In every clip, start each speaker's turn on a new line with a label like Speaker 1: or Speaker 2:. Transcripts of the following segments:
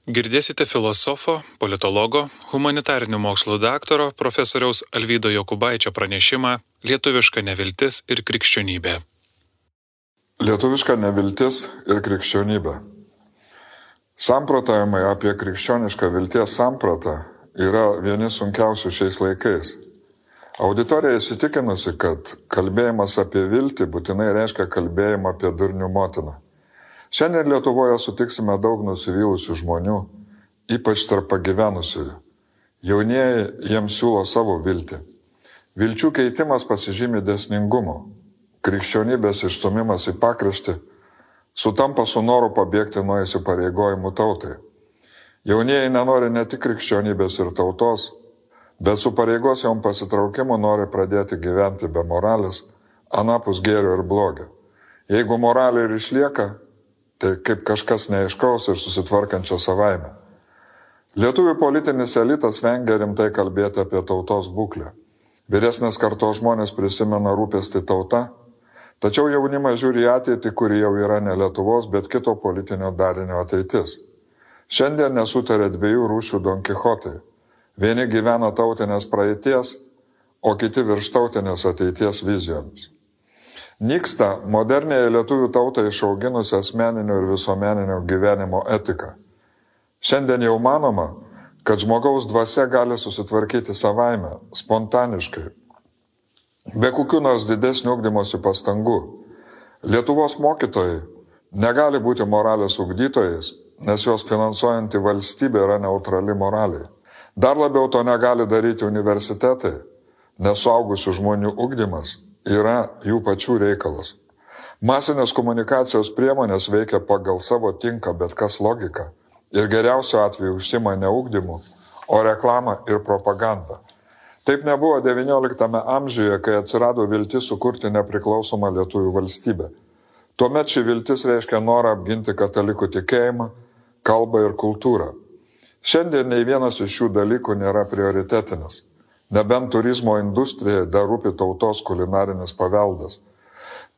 Speaker 1: Girdėsite filosofo, politologo, humanitarinių mokslų daktaro profesoriaus Alvydo Jokubaičio pranešimą Lietuviška neviltis ir krikščionybė.
Speaker 2: Lietuviška neviltis ir krikščionybė. Samprotavimai apie krikščionišką vilties sampratą yra vieni sunkiausių šiais laikais. Auditorija įsitikinusi, kad kalbėjimas apie viltį būtinai reiškia kalbėjimą apie durnių motiną. Šiandien Lietuvoje sutiksime daug nusivylusių žmonių, ypač tarp pagyvenusiųjų. Jaunieji jiems siūlo savo viltį. Vilčių keitimas pasižymi dėsningumu. Krikščionybės išstumimas į pakraštį sutampa su noru pabėgti nuo įsipareigojimų tautai. Jaunieji nenori ne tik krikščionybės ir tautos, bet su pareigos jom pasitraukimu nori pradėti gyventi be moralės, anapus gėrio ir blogio. Jeigu moralė ir išlieka, tai kaip kažkas neaiškaus ir susitvarkančio savaime. Lietuvių politinis elitas vengia rimtai kalbėti apie tautos būklę. Vyresnės kartos žmonės prisimena rūpestį tauta, tačiau jaunimas žiūri į ateitį, kuri jau yra ne Lietuvos, bet kito politinio darinio ateitis. Šiandien nesutarė dviejų rūšių Don Kichotai. Vieni gyvena tautinės praeities, o kiti virštautinės ateities vizijomis. Nyksta modernėje lietuvių tautą išauginusi asmeninio ir visuomeninio gyvenimo etika. Šiandien jau manoma, kad žmogaus dvasia gali susitvarkyti savaime, spontaniškai, be kokių nors didesnių ugdymosi pastangų. Lietuvos mokytojai negali būti moralės ugdytojais, nes jos finansuojanti valstybė yra neutrali moraliai. Dar labiau to negali daryti universitetai, nes suaugusių žmonių ugdymas yra jų pačių reikalas. Masinės komunikacijos priemonės veikia pagal savo tinka bet kas logiką ir geriausiu atveju užsima ne ugdymu, o reklamą ir propagandą. Taip nebuvo XIX amžiuje, kai atsirado viltis sukurti nepriklausomą lietuvių valstybę. Tuomet ši viltis reiškia norą apginti katalikų tikėjimą, kalbą ir kultūrą. Šiandien nei vienas iš šių dalykų nėra prioritetinis. Nebent turizmo industrijai dar rūpi tautos kulinarinis paveldas.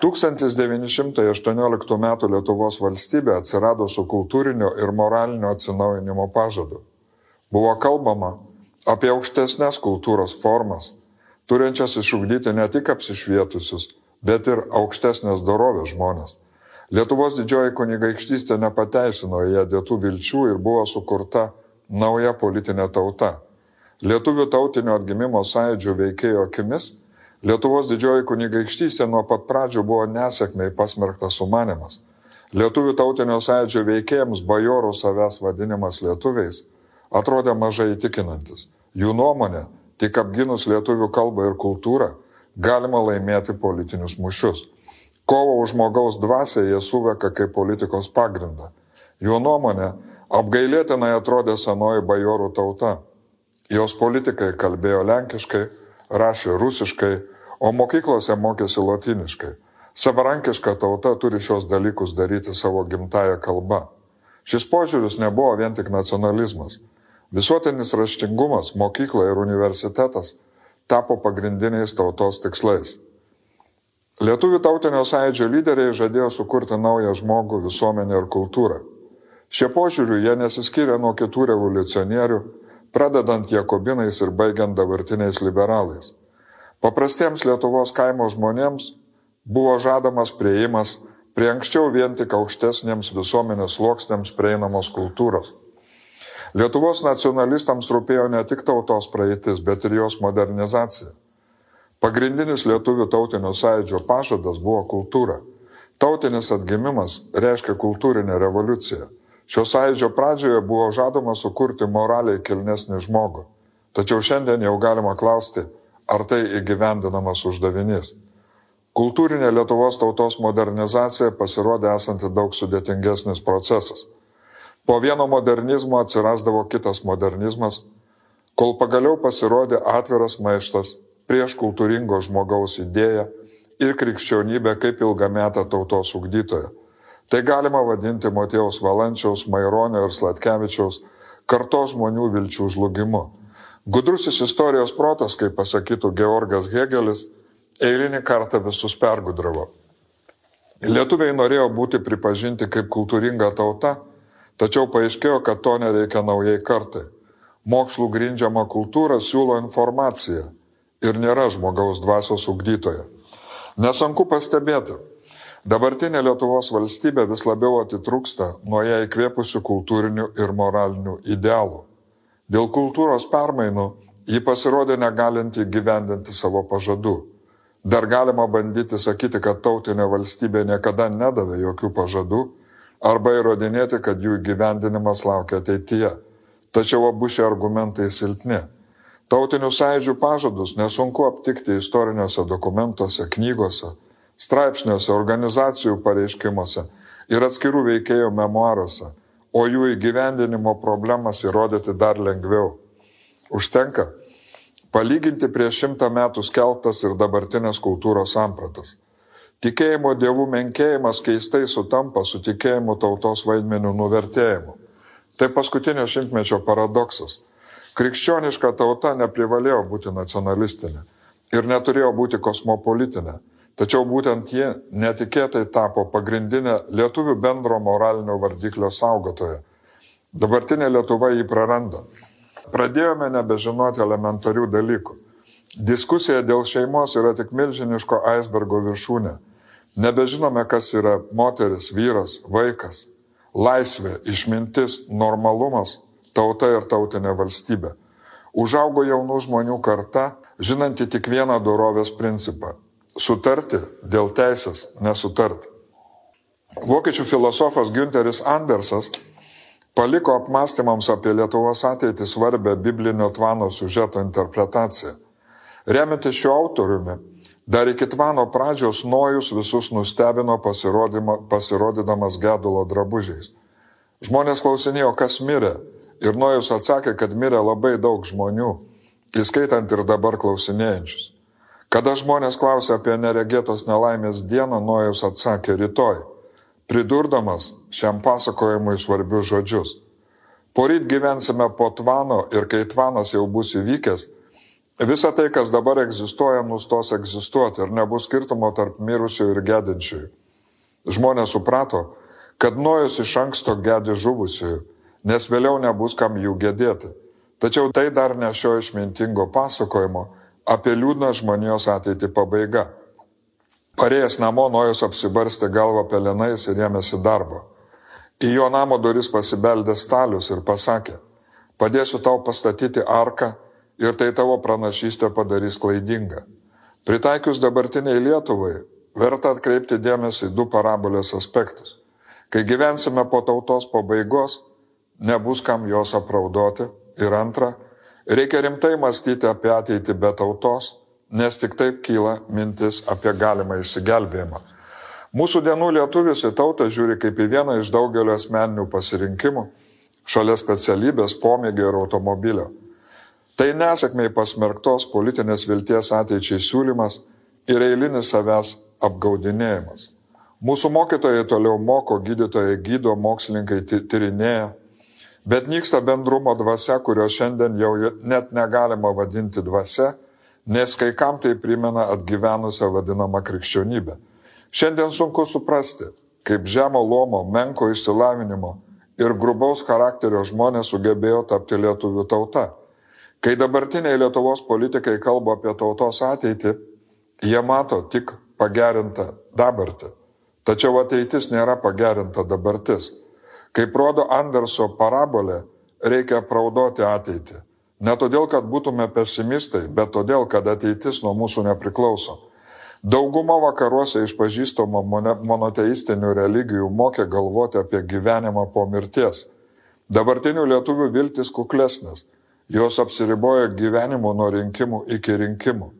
Speaker 2: 1918 m. Lietuvos valstybė atsirado su kultūrinio ir moralinio atsinaujinimo pažadu. Buvo kalbama apie aukštesnės kultūros formas, turinčias išugdyti ne tik apsišvietusius, bet ir aukštesnės dorovės žmonės. Lietuvos didžioji kunigaikštystė nepateisino ją dėtų vilčių ir buvo sukurta nauja politinė tauta. Lietuvių tautinio atgimimo sąjūdžio veikėjo akimis, Lietuvos didžioji kunigaikštystė nuo pat pradžių buvo nesėkmei pasmerktas sumanymas. Lietuvių tautinio sąjūdžio veikėjams bajorų savęs vadinimas lietuviais atrodė mažai įtikinantis. Jų nuomonė, tik apginus lietuvių kalbą ir kultūrą, galima laimėti politinius mūšius. Kovo už žmogaus dvasią jie suveka kaip politikos pagrindą. Jų nuomonė apgailėtinai atrodė senoji bajorų tauta. Jos politikai kalbėjo lenkiškai, rašė rusiškai, o mokyklose mokėsi lotyniškai. Savarankiška tauta turi šios dalykus daryti savo gimtąją kalbą. Šis požiūris nebuvo vien tik nacionalizmas. Visuotinis raštingumas, mokykla ir universitetas tapo pagrindiniais tautos tikslais. Lietuvių tautinio sąjūdžio lyderiai žadėjo sukurti naują žmogų, visuomenę ir kultūrą. Šie požiūrių jie nesiskyrė nuo kitų revoliucionierių, pradedant jakobinais ir baigiant dabartiniais liberalais. Paprastiems Lietuvos kaimo žmonėms buvo žadamas priėjimas prie anksčiau vien tik aukštesniems visuomenės sluoksniams prieinamos kultūros. Lietuvos nacionalistams rūpėjo ne tik tautos praeitis, bet ir jos modernizacija. Pagrindinis lietuvių tautinio sąjūdžio pažadas buvo kultūra. Tautinis atgimimas reiškia kultūrinę revoliuciją. Šio sąjūdžio pradžioje buvo žadama sukurti moraliai kilnesnį žmogų. Tačiau šiandien jau galima klausti, ar tai įgyvendinamas uždavinys. Kultūrinė Lietuvos tautos modernizacija pasirodė esanti daug sudėtingesnis procesas. Po vieno modernizmo atsirasdavo kitas modernizmas, kol pagaliau pasirodė atviras maištas prieš kultūringo žmogaus idėją ir krikščionybę kaip ilgametę tautos ugdytoją. Tai galima vadinti Motiejaus Valančiaus, Maironio ir Sladkevičiaus kartos žmonių vilčių žlugimu. Gudrusis istorijos protas, kaip pasakytų Georgas Hėgelis, eilinį kartą visus pergudravo. Lietuviai norėjo būti pripažinti kaip kultūringa tauta, Tačiau paaiškėjo, kad to nereikia naujai kartai. Mokslų grindžiama kultūra siūlo informaciją ir nėra žmogaus dvasios ugdytoja. Nesunku pastebėti, dabartinė Lietuvos valstybė vis labiau atitrūksta nuo ją įkvėpusių kultūrinių ir moralinių idealų. Dėl kultūros permainų ji pasirodė negalinti gyvendinti savo pažadų. Dar galima bandyti sakyti, kad tautinė valstybė niekada nedavė jokių pažadų arba įrodinėti, kad jų įgyvendinimas laukia ateityje. Tačiau abu šie argumentai silpni. Tautinių sąjūdžių pažadus nesunku aptikti istoriniuose dokumentuose, knygose, straipsniuose, organizacijų pareiškimuose ir atskirų veikėjų memuaruose, o jų įgyvendinimo problemas įrodyti dar lengviau. Užtenka palyginti prieš 100 metų skelbtas ir dabartinės kultūros sampratas. Tikėjimo dievų menkėjimas keistai sutampa su tikėjimu tautos vaidmenių nuvertėjimu. Tai paskutinio šimtmečio paradoksas. Krikščioniška tauta neprivalėjo būti nacionalistinė ir neturėjo būti kosmopolitinė, tačiau būtent ji netikėtai tapo pagrindinė lietuvių bendro moralinio vardiklio saugotoja. Dabartinė Lietuva jį praranda. Pradėjome nebežinoti elementarių dalykų. Diskusija dėl šeimos yra tik milžiniško aisbergo viršūnė. Nebežinome, kas yra moteris, vyras, vaikas, laisvė, išmintis, normalumas, tauta ir tautinė valstybė. Užaugo jaunų žmonių karta, žinanti tik vieną dorovės principą – sutarti dėl teisės nesutarti. Vokiečių filosofas Günteris Andersas paliko apmąstymams apie Lietuvos ateitį svarbę biblinio Tvano siužeto interpretaciją. Remiantis šiuo autoriumi, dar iki Tvano pradžios Nojus visus nustebino pasirodydamas gedulo drabužiais. Žmonės klausinėjo, kas mirė, ir Nojus atsakė, kad mirė labai daug žmonių, įskaitant ir dabar klausinėjančius. Kada žmonės klausė apie neregėtos nelaimės dieną, Nojus atsakė rytoj, pridurdamas šiam pasakojimui svarbius žodžius. Poryt gyvensime po Tvano ir kai Tvanas jau bus įvykęs, visa tai, kas dabar egzistuoja, nustos egzistuoti ir nebus skirtumo tarp mirusių ir gedinčiųjų. Žmonės suprato, kad Nojus iš anksto gedi žuvusiųjų, nes vėliau nebus kam jų gedėti. Tačiau tai dar ne šio išmintingo pasakojimo apie liūdną žmonijos ateitį pabaiga. Parėjęs namo, Nojus apsibarstė galvą pelenais ir ėmėsi darbo. Į jo namo duris pasibeldė Stalius ir pasakė, padėsiu tau pastatyti arką, ir tai tavo pranašystė padarys klaidingą. Pritaikius dabartiniai Lietuvai, verta atkreipti dėmesį į 2 parabolės aspektus. Kai gyvensime po tautos pabaigos, nebus kam jos apraudoti. Ir antra, reikia rimtai mąstyti apie ateitį be tautos, nes tik taip kyla mintis apie galimą išsigelbėjimą. Mūsų dienų lietuvis į tautą žiūri kaip į vieną iš daugelio asmeninių pasirinkimų, šalia specialybės, pomėgio ir automobilio. Tai nesėkmei pasmerktos politinės vilties ateičiai siūlymas ir eilinis savęs apgaudinėjimas. Mūsų mokytojai toliau moko, gydytojai gydo, mokslininkai tyrinėja, bet nyksta bendrumo dvasia, kurio šiandien jau net negalima vadinti dvasia, nes kai kam tai primena atgyvenusią vadinamą krikščionybę. Šiandien sunku suprasti, kaip žemo luomo, menko išsilavinimo ir grubaus charakterio žmonės sugebėjo tapti lietuvių tauta. Kai dabartiniai Lietuvos politikai kalba apie tautos ateitį, jie mato tik pagerintą dabartį. Tačiau ateitis nėra pagerinta dabartis. Kaip rodo Anderso parabolė, reikia apraudoti ateitį. Ne todėl, kad būtume pesimistai, bet todėl, kad ateitis nuo mūsų nepriklauso. Dauguma vakaruose išpažįstamų monoteistinių religijų mokė galvoti apie gyvenimą po mirties. Dabartinių lietuvių viltis kuklesnės. Jos apsiribojo gyvenimu nuo rinkimų iki rinkimų.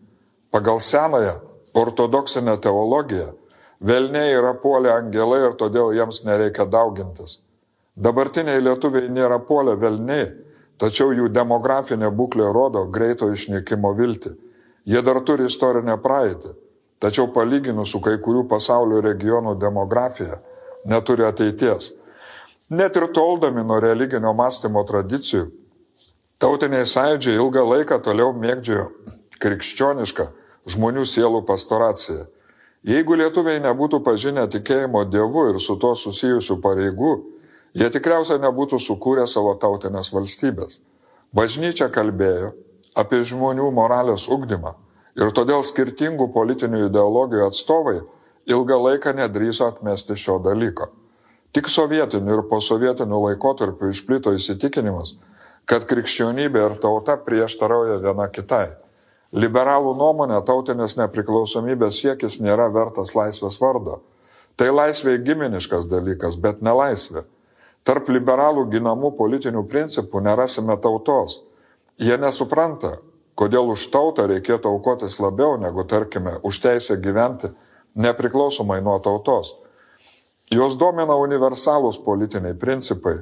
Speaker 2: Pagal senąją ortodoksinę teologiją, velniai yra puolę angelai ir todėl jiems nereikia daugintis. Dabartiniai lietuviai nėra puolę velniai, tačiau jų demografinė būklė rodo greito išnykimo viltį. Jie dar turi istorinę praeitį, tačiau palyginus su kai kurių pasaulio regionų demografija neturi ateities. Net ir toldami nuo religinio mąstymo tradicijų, tautiniai sąjūdžiai ilgą laiką toliau mėgdžiojo krikščionišką žmonių sielų pastoraciją. Jeigu lietuviai nebūtų pažinę tikėjimo Dievu ir su to susijusių pareigų, jie tikriausiai nebūtų sukūrę savo tautinės valstybės. Bažnyčia kalbėjo apie žmonių moralės ugdymą ir todėl skirtingų politinių ideologijų atstovai ilgą laiką nedrįso atmesti šio dalyko. Tik sovietiniu ir posovietiniu laikotarpiu išplito įsitikinimas, kad krikščionybė ir tauta prieštarauja viena kitai. Liberalų nuomonė tautinės nepriklausomybės siekis nėra vertas laisvės vardo. Tai laisvė giminiškas dalykas, bet ne laisvė. Tarp liberalų ginamų politinių principų nerasime tautos. Jie nesupranta, kodėl už tautą reikėtų aukotis labiau negu, tarkime, už teisę gyventi nepriklausomai nuo tautos. Jos domina universalūs politiniai principai,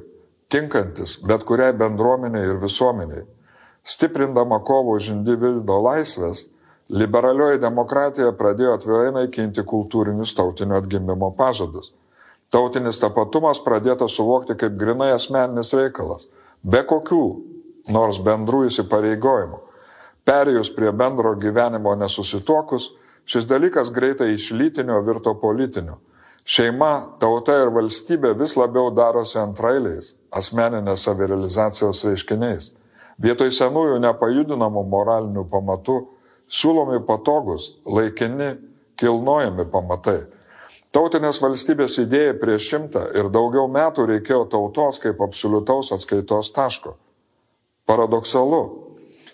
Speaker 2: tinkantis bet kuriai bendruomeniai ir visuomeniai. Stiprindama kovą už individo laisvės, liberalioji demokratija pradėjo atvirai naikinti kultūrinius tautinio atgimimo pažadus. Tautinis tapatumas pradėtas suvokti kaip grinai asmeninis reikalas, be kokių nors bendrų įsipareigojimų. Perėjus prie bendro gyvenimo nesusituokus, šis dalykas greitai iš lytinio virto politiniu. Šeima, tauta ir valstybė vis labiau darosi antrailiais, asmeninės savirealizacijos reiškiniais. Vietoj senųjų nepajudinamų moralinių pamatų siūlomi patogus, laikini, kilnojami pamatai. Tautinės valstybės idėjai prieš 100 ir daugiau metų reikėjo tautos kaip absoliutaus atskaitos taško. Paradoksalu.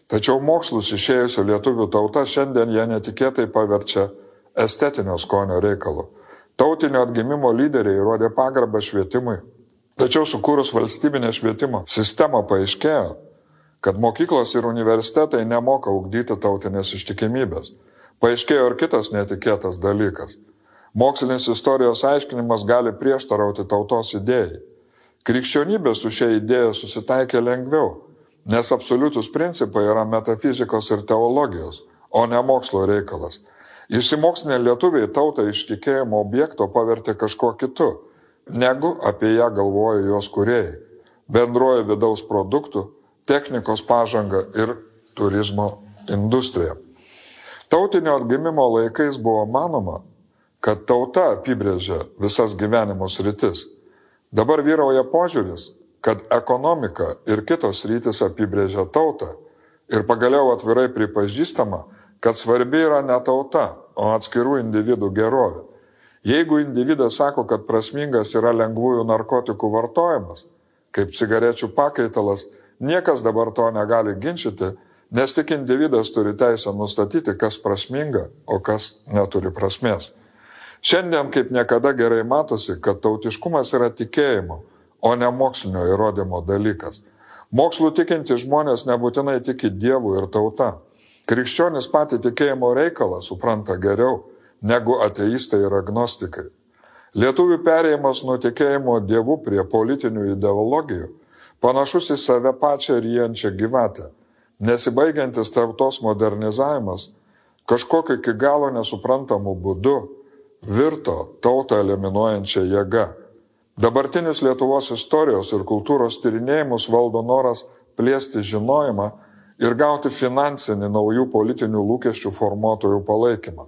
Speaker 2: Tačiau mokslus išėjusio lietuvių tauta šiandien jie netikėtai paverčia estetinio skonio reikalu. Tautinio atgimimo lyderiai rodė pagarbą švietimui. Tačiau sukūrus valstybinę švietimo sistemą paaiškėjo, kad mokyklos ir universitetai nemoka ugdyti tautinės ištikimybės. Paaiškėjo ir kitas netikėtas dalykas. Mokslinis istorijos aiškinimas gali prieštarauti tautos idėjai. Krikščionybė su šia idėja susitaikė lengviau, nes absoliutus principai yra metafizikos ir teologijos, o ne mokslo reikalas. Išsimokslinę lietuviai tautą iš tikėjimo objekto pavertė kažkuo kitu, negu apie ją galvoja jos kūrėjai. Bendroji vidaus produktų, technikos pažanga ir turizmo industrija. Tautinio atgimimo laikais buvo manoma, kad tauta apibrėžia visas gyvenimo sritis. Dabar vyrauja požiūris, kad ekonomika ir kitos sritis apibrėžia tautą ir pagaliau atvirai pripažįstama, kad svarbi yra ne tauta, o atskirų individų gerovė. Jeigu individas sako, kad prasmingas yra lengvųjų narkotikų vartojimas, kaip cigarečių pakaitalas, niekas dabar to negali ginčyti, nes tik individas turi teisę nustatyti, kas prasminga, o kas neturi prasmės. Šiandien kaip niekada gerai matosi, kad tautiškumas yra tikėjimo, o ne mokslinio įrodymo dalykas. Mokslų tikinti žmonės nebūtinai tiki Dievu ir tauta. Krikščionis patį tikėjimo reikalą supranta geriau negu ateistai ir agnostikai. Lietuvių perėjimas nuo tikėjimo Dievu prie politinių ideologijų panašus į save pačią ryjančią gyvatę. Nesibaigiantis tautos modernizavimas kažkokiu iki galo nesuprantamu būdu virto tautą eliminuojančią jėgą. Dabartinis Lietuvos istorijos ir kultūros tyrinėjimus valdo noras plėsti žinojimą ir gauti finansinį naujų politinių lūkesčių formuotojų palaikymą.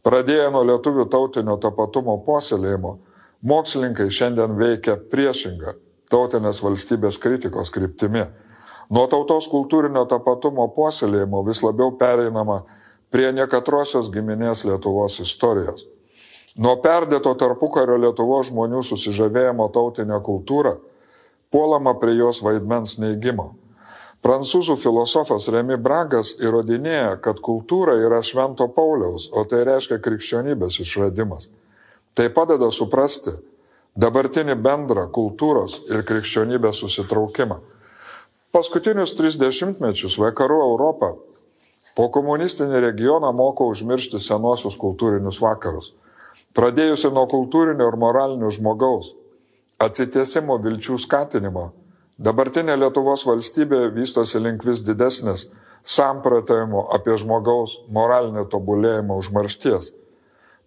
Speaker 2: Pradėję nuo lietuvių tautinio tapatumo puoselėjimo, mokslininkai šiandien veikia priešingą tautinės valstybės kritikos kryptimi. Nuo tautos kultūrinio tapatumo puoselėjimo vis labiau pereinama prie nekatrosios giminės Lietuvos istorijos. Nuo perdėto tarpukario Lietuvos žmonių susižavėjimo tautinę kultūrą puolama prie jos vaidmens neigimo. Prancūzų filosofas Remy Bragas įrodinėja, kad kultūra yra Švento Pauliaus, o tai reiškia krikščionybės išradimas. Tai padeda suprasti dabartinį bendrą kultūros ir krikščionybės susitraukimą. Paskutinius 30 mečius vakarų Europą po komunistinį regioną moko užmiršti senuosius kultūrinius vakarus. Pradėjusi nuo kultūrinio ir moralinio žmogaus atsitiesimo vilčių skatinimo, dabartinė Lietuvos valstybė vystosi link vis didesnės samprotavimo apie žmogaus moralinį tobulėjimą užmaršties.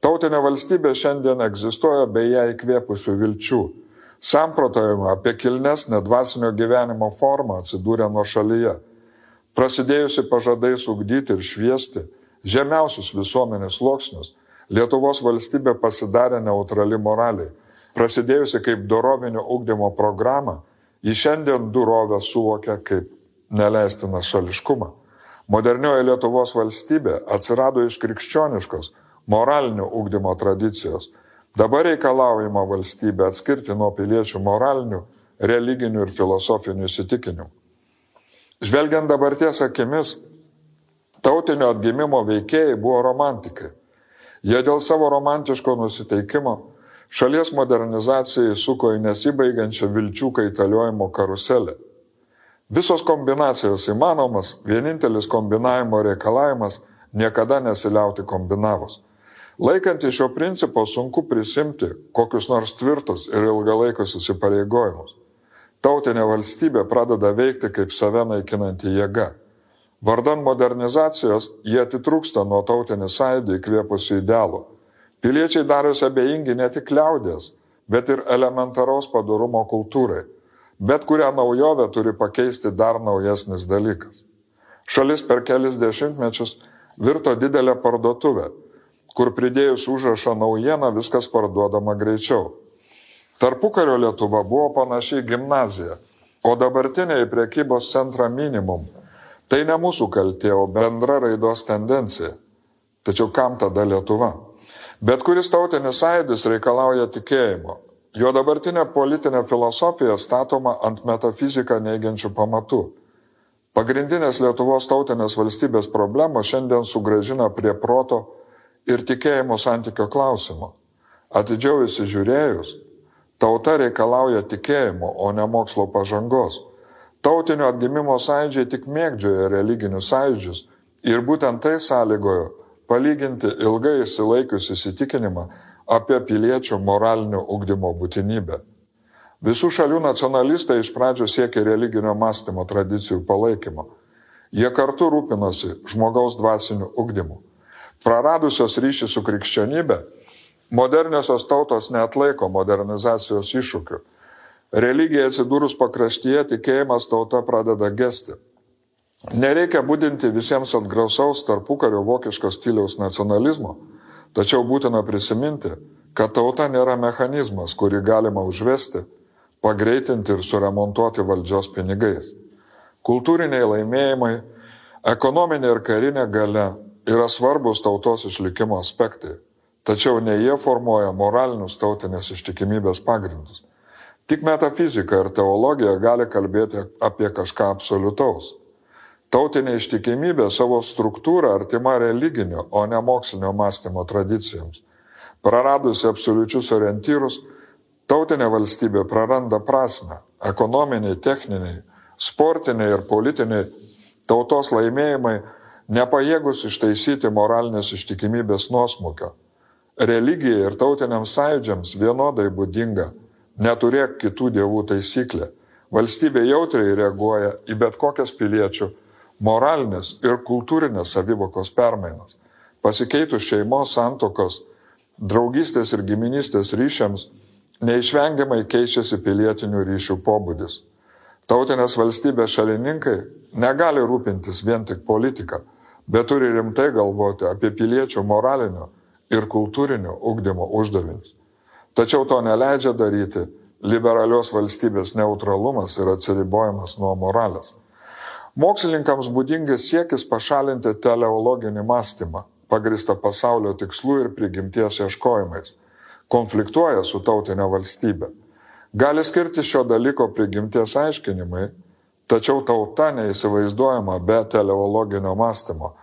Speaker 2: Tautinė valstybė šiandien egzistuoja be ją įkvėpusių vilčių. Samprotavimo apie kilnesnę dvasinio gyvenimo formą atsidūrė nuošalyje. Prasidėjusi pažadais ugdyti ir šviesti žemiausius visuomenės sluoksnius, Lietuvos valstybė pasidarė neutrali moraliai. prasidėjusi kaip dorovinio ugdymo programa, ji šiandien dorovę suvokia kaip neleistiną šališkumą. Modernioji Lietuvos valstybė atsirado iš krikščioniškos moralinio ugdymo tradicijos. Dabar reikalaujama valstybė atskirti nuo piliečių moralinių, religinių ir filosofinių įsitikinimų. Žvelgiant dabarties akimis, tautinio atgimimo veikėjai buvo romantikai. Jie dėl savo romantiško nusiteikimo šalies modernizacijai suko į nesibaigiančią vilčių kaitaliojimo karuselę. Visos kombinacijos įmanomas, vienintelis kombinavimo reikalavimas niekada nesiliauti kombinavus. Laikant šio principo sunku prisimti kokius nors tvirtus ir ilgalaikius įsipareigojimus. Tautinė valstybė pradeda veikti kaip save naikinanti jėga. Vardan modernizacijos jie atitrūksta nuo tautinį sąjūdį įkvėpusių idealų. Piliečiai darosi abejingi ne tik liaudies, bet ir elementaraus padorumo kultūrai. Bet kurią naujovę turi pakeisti dar naujesnis dalykas. Šalis per kelis dešimtmečius virto didelę parduotuvę, kur pridėjus užrašą naujieną viskas parduodama greičiau. Tarpukario Lietuva buvo panašiai gimnazija, o dabartiniai prekybos centra minimum. Tai ne mūsų kaltė, o bendra raidos tendencija. Tačiau kam tada Lietuva? Bet kuris tautinis sąjūdis reikalauja tikėjimo. Jo dabartinė politinė filosofija statoma ant metafiziką neigiančių pamatų. Pagrindinės Lietuvos tautinės valstybės problemos šiandien sugrąžina prie proto ir tikėjimo santykio klausimo. Atidžiau įsižiūrėjus, tauta reikalauja tikėjimo, o ne mokslo pažangos. Tautinio atgimimo sąjūdžiai tik mėgdžioja religinius sąjūdžius ir būtent tai sąlygojo palyginti ilgai išsilaikius įsitikinimą apie piliečių moralinio ugdymo būtinybę. Visų šalių nacionalistai iš pradžių siekė religinio mąstymo tradicijų palaikymo. Jie kartu rūpinosi žmogaus dvasiniu ugdymu. Praradusios ryšį su krikščionybė, moderniosios tautos neatlaiko modernizacijos iššūkių. Religija atsidūrus pakraštyje, tikėjimas tauta pradeda gesti. Nereikia budinti visiems atgrausaus tarpukario vokiško stiliaus nacionalizmo, tačiau būtina prisiminti, kad tauta nėra mechanizmas, kurį galima užvesti, pagreitinti ir suremontuoti valdžios pinigais. Kultūriniai laimėjimai, ekonominė ir karinė galia yra svarbus tautos išlikimo aspektai, tačiau ne jie formuoja moralinius tautinės ištikimybės pagrindus. Tik metafizika ir teologija gali kalbėti apie kažką absoliutaus. Tautinė ištikimybė savo struktūrą artima religinio, o ne mokslinio mąstymo tradicijoms. Praradusi absoliučius orientyrus, tautinė valstybė praranda prasmę. Ekonominiai, techniniai, sportiniai ir politiniai tautos laimėjimai nepajėgus ištaisyti moralinės ištikimybės nuosmukio. Religijai ir tautiniams sąjūdžiams vienodai būdinga neturėk kitų dievų taisyklė. Valstybė jautriai reaguoja į bet kokias piliečių moralinės ir kultūrinės savivokos permainas. Pasikeitus šeimos, santokos, draugystės ir giminystės ryšiams, neišvengiamai keičiasi pilietinių ryšių pobūdis. Tautinės valstybės šalininkai negali rūpintis vien tik politiką, bet turi rimtai galvoti apie piliečių moralinio ir kultūrinio ugdymo uždavinius. Tačiau to neleidžia daryti liberalios valstybės neutralumas ir atsiribojimas nuo moralės. Mokslininkams būdingas siekis pašalinti teleologinį mąstymą, pagrįstą pasaulio tikslų ir prigimties ieškojimais, konfliktuoja su tautinė valstybė. Gali skirti šio dalyko prigimties aiškinimai, tačiau tauta neįsivaizduojama be teleologinio mąstymo.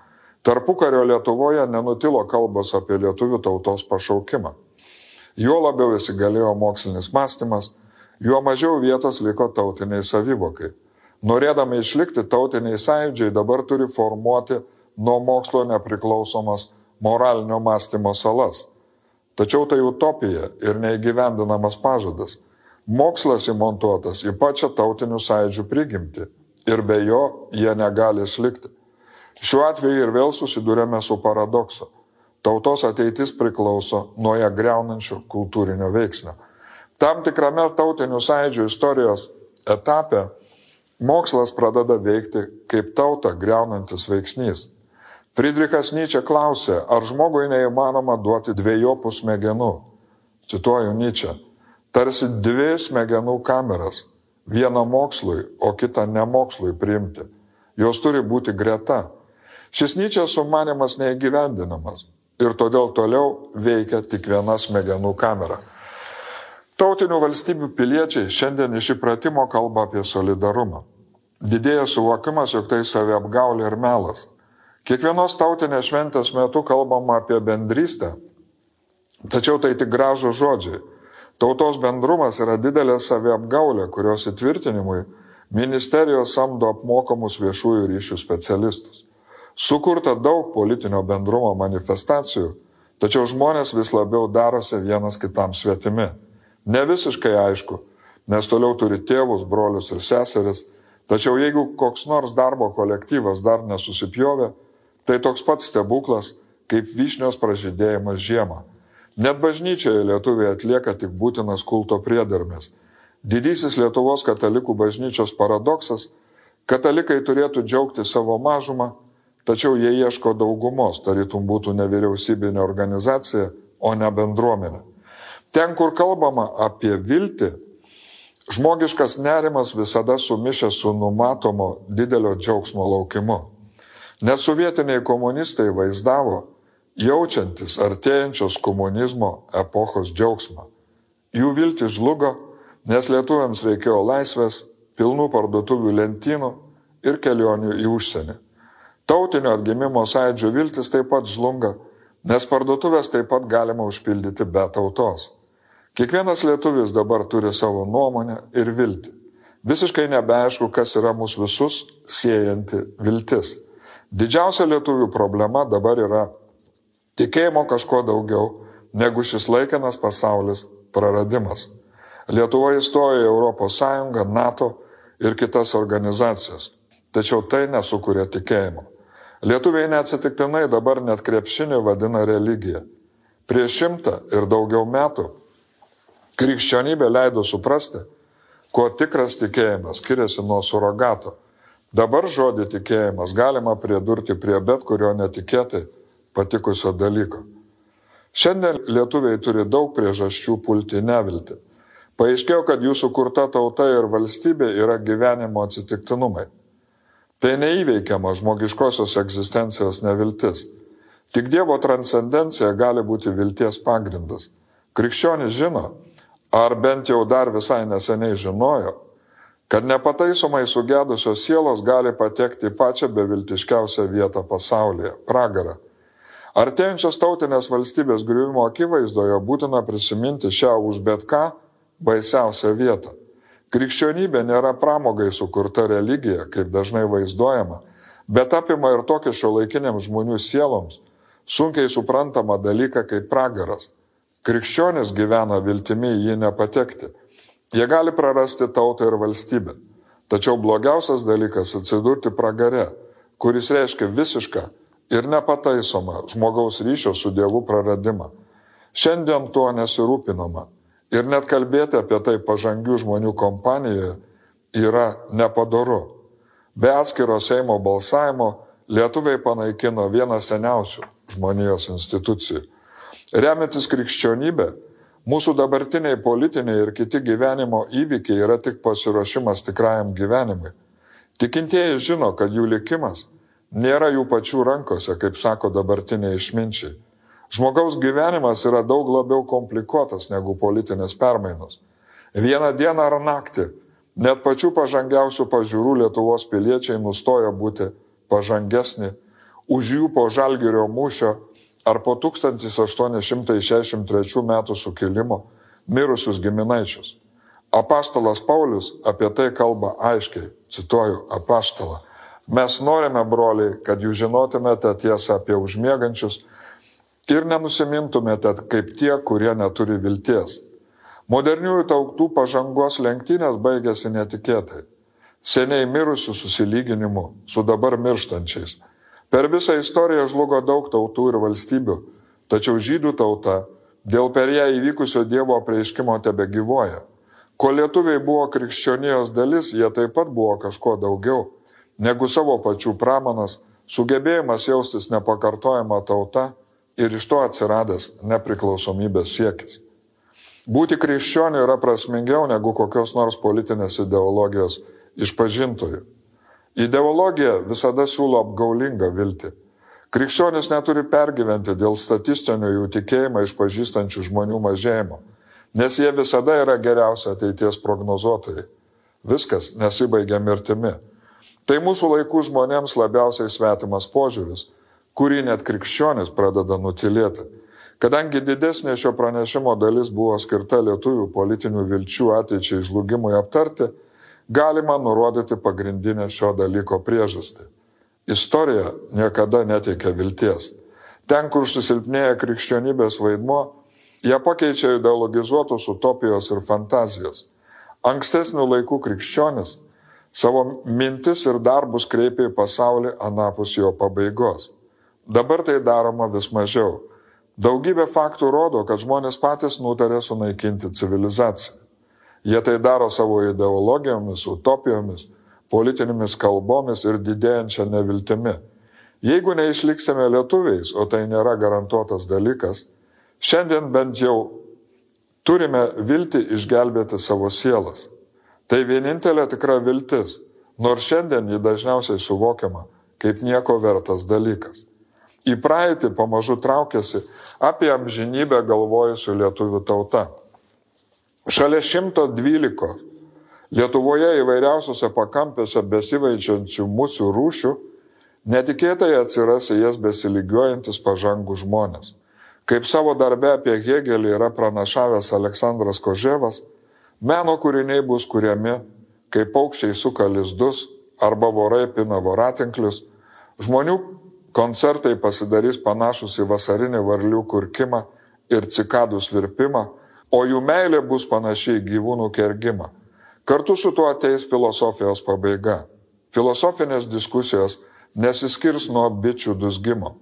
Speaker 2: Tarpukario Lietuvoje nenutilo kalbos apie lietuvių tautos pašaukimą. Juo labiau įsigalėjo mokslinis mąstymas, juo mažiau vietos liko tautiniai savivokai. Norėdami išlikti, tautiniai sąjūdžiai dabar turi formuoti nuo mokslo nepriklausomas moralinio mąstymo salas. Tačiau tai utopija ir neįgyvendinamas pažadas. Mokslas įmontuotas į pačią tautinių sąjūdžių prigimtį ir be jo jie negali išlikti. Šiuo atveju ir vėl susidūrėme su paradoksu. Tautos ateitis priklauso nuo ją griaunančio kultūrinio veiksnio. Tam tikrame tautinių sąjūdžių istorijos etape mokslas pradeda veikti kaip tautą griaunantis veiksnys. Friedrichas Nyčė klausė, ar žmogui neįmanoma duoti dviejopų smegenų. Cituoju Nyčę. tarsi dvi smegenų kameras, vieną mokslui, o kitą nemokslui priimti. Jos turi būti greta. Šis Nyčės sumanymas neįgyvendinamas ir todėl toliau veikia tik viena smegenų kamera. Tautinių valstybių piliečiai šiandien iš įpratimo kalba apie solidarumą. Didėja suvokimas, jog tai saviapgaulė ir melas. Kiekvienos tautinės šventės metu kalbama apie bendrystę, tačiau tai tik gražūs žodžiai. Tautos bendrumas yra didelė saviapgaulė, kurios įtvirtinimui ministerijos samdo apmokamus viešųjų ryšių specialistus. Sukurta daug politinio bendrumo manifestacijų, tačiau žmonės vis labiau darosi vienas kitam svetimi. Ne visiškai aišku, nes toliau turi tėvus, brolius ir seseris, tačiau jeigu koks nors darbo kolektyvas dar nesusipjovė, tai toks pats stebuklas, kaip vyšnios pražydėjimas žiemą. Net bažnyčioje lietuviai atlieka tik būtinas kulto priedermės. Didysis Lietuvos katalikų bažnyčios paradoksas – katalikai turėtų džiaugti savo mažumą, tačiau jie ieško daugumos, tarytum būtų nevyriausybinė organizacija, o ne bendruomenė. Ten, kur kalbama apie viltį, žmogiškas nerimas visada sumišęs su numatomo didelio džiaugsmo laukimu. Net sovietiniai komunistai vaizdavo, jaučiantis artėjančios komunizmo epochos džiaugsmą. Jų viltis žlugo, nes lietuviams reikėjo laisvės, pilnų parduotuvių lentynų ir kelionių į užsienį. Tautinio atgimimo sąjūdžio viltis taip pat žlunga, nes parduotuvės taip pat galima užpildyti be tautos. Kiekvienas lietuvis dabar turi savo nuomonę ir viltį. Visiškai nebeaišku, kas yra mūsų visus siejanti viltis. Didžiausia lietuvių problema dabar yra tikėjimo kažko daugiau negu šis laikinas pasaulis praradimas. Lietuva įstojo į Europos Sąjungą, NATO ir kitas organizacijas, tačiau tai nesukuria tikėjimo. Lietuviai neatsitiktinai dabar net krepšinį vadina religija. Prieš 100 ir daugiau metų krikščionybė leido suprasti, kuo tikras tikėjimas skiriasi nuo surogato. Dabar žodį tikėjimas galima pridurti prie bet kurio netikėtai patikusio dalyko. Šiandien lietuviai turi daug priežasčių pulti neviltį. Paaiškėjo, kad jų sukurta tauta ir valstybė yra gyvenimo atsitiktinumai. Tai neįveikiama žmogiškosios egzistencijos neviltis. Tik Dievo transcendencija gali būti vilties pagrindas. Krikščionis žino, ar bent jau dar visai neseniai žinojo, kad nepataisomai sugedusios sielos gali patekti į pačią beviltiškiausią vietą pasaulyje – pragarą. Artėjančios tautinės valstybės griuvimo akivaizdoje būtina prisiminti šią už bet ką baisiausią vietą. Krikščionybė nėra pramogai sukurta religija, kaip dažnai vaizduojama, bet apima ir tokį šiuolaikiniams žmonių sieloms sunkiai suprantamą dalyką kaip pragaras. Krikščionis gyvena viltimi į jį nepatekti. Jie gali prarasti tautą ir valstybę. Tačiau blogiausias dalykas atsidurti pragare, kuris reiškia visišką ir nepataisomą žmogaus ryšio su Dievu praradimą. Šiandien tuo nesirūpinama ir net kalbėti apie tai pažangių žmonių kompanijoje yra nepadoru. Be atskiro Seimo balsavimo lietuviai panaikino vieną seniausių žmonijos institucijų. Remiantis krikščionybė, mūsų dabartiniai politiniai ir kiti gyvenimo įvykiai yra tik pasiruošimas tikrajam gyvenimui. Tikintieji žino, kad jų likimas nėra jų pačių rankose, kaip sako dabartiniai išminčiai. Žmogaus gyvenimas yra daug labiau komplikuotas negu politinės permainos. Vieną dieną ar naktį net pačių pažangiausių pažiūrų Lietuvos piliečiai nustoja būti pažangesni už jų po Žalgirio mūšio ar po 1863 metų sukilimo mirusius giminaičius. Apaštalas Paulius apie tai kalba aiškiai, cituoju apaštalą. Mes norime, broliai, kad jūs žinotumėte tiesą apie užmiegančius ir nenusimintumėte kaip tie, kurie neturi vilties. Moderniųjų tautų pažangos lenktynės baigėsi netikėtai. Seniai mirusių susilyginimu su dabar mirštančiais. Per visą istoriją žlugo daug tautų ir valstybių, tačiau žydų tauta dėl per ją įvykusio Dievo apreiškimo tebegyvuoja. Kol lietuviai buvo krikščionijos dalis, jie taip pat buvo kažko daugiau negu savo pačių pramanas, sugebėjimas jaustis nepakartojama tauta ir iš to atsiradęs nepriklausomybės siekis. Būti krikščioniu yra prasmingiau negu kokios nors politinės ideologijos išpažintojų. Ideologija visada siūlo apgaulingą viltį. Krikščionis neturi pergyventi dėl statistinio jų tikėjimą išpažįstančių žmonių mažėjimo, nes jie visada yra geriausi ateities prognozuotojai. Viskas nesibaigia mirtimi. Tai mūsų laikų žmonėms labiausiai svetimas požiūris, kurį net krikščionis pradeda nutilėti. Kadangi didesnė šio pranešimo dalis buvo skirta lietuvių politinių vilčių ateičiai žlugimui aptarti, galima nurodyti pagrindinę šio dalyko priežastį. Istorija niekada neteikia vilties. Ten, kur susilpnėja krikščionybės vaidmuo, ją pakeičia ideologizuotos utopijos ir fantazijos. Ankstesnių laikų krikščionis savo mintis ir darbus kreipia į pasaulį anapus jo pabaigos. Dabar tai daroma vis mažiau. Daugybė faktų rodo, kad žmonės patys nutarė sunaikinti civilizaciją. Jie tai daro savo ideologijomis, utopijomis, politinėmis kalbomis ir didėjančia neviltimi. Jeigu neišliksime lietuviais, o tai nėra garantuotas dalykas, šiandien bent jau turime viltį išgelbėti savo sielas. Tai vienintelė tikra viltis, nors šiandien ji dažniausiai suvokiama kaip nieko vertas dalykas. Į praeitį pamažu traukiasi apie amžinybę galvojusių lietuvių tauta. Šalia 112 Lietuvoje įvairiausiose pakampėse besivaičiančių musių rūšių netikėtai atsiras į jas besiligiuojantis pažangų žmonės. Kaip savo darbe apie Hėgelį yra pranašavęs Aleksandras Koževas, meno kūriniai bus kuriami, kaip paukščiai suka lizdus arba vorai pina voratinklius, žmonių koncertai pasidarys panašus į vasarinį varlių kurkimą ir cikadų svirpimą, o jų meilė bus panašiai į gyvūnų kergimą. Kartu su tuo ateis filosofijos pabaiga. Filosofinės diskusijos nesiskirs nuo bičių dusgimo.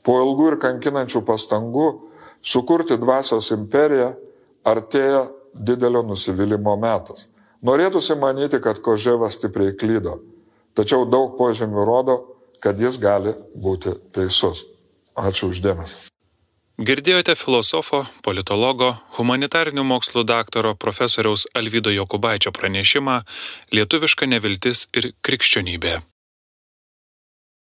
Speaker 2: Po ilgų ir kankinančių pastangų sukurti dvasios imperiją artėja didelio nusivylimo metas. Norėtųsi manyti, kad Koževas stipriai klydo, tačiau daug požymių rodo, kad jis gali būti teisus. Ačiū uždėmesį.
Speaker 1: Girdėjote filosofo, politologo, humanitarinių mokslų daktaro profesoriaus Alvydo Jokubaičio pranešimą Lietuviška neviltis ir krikščionybė.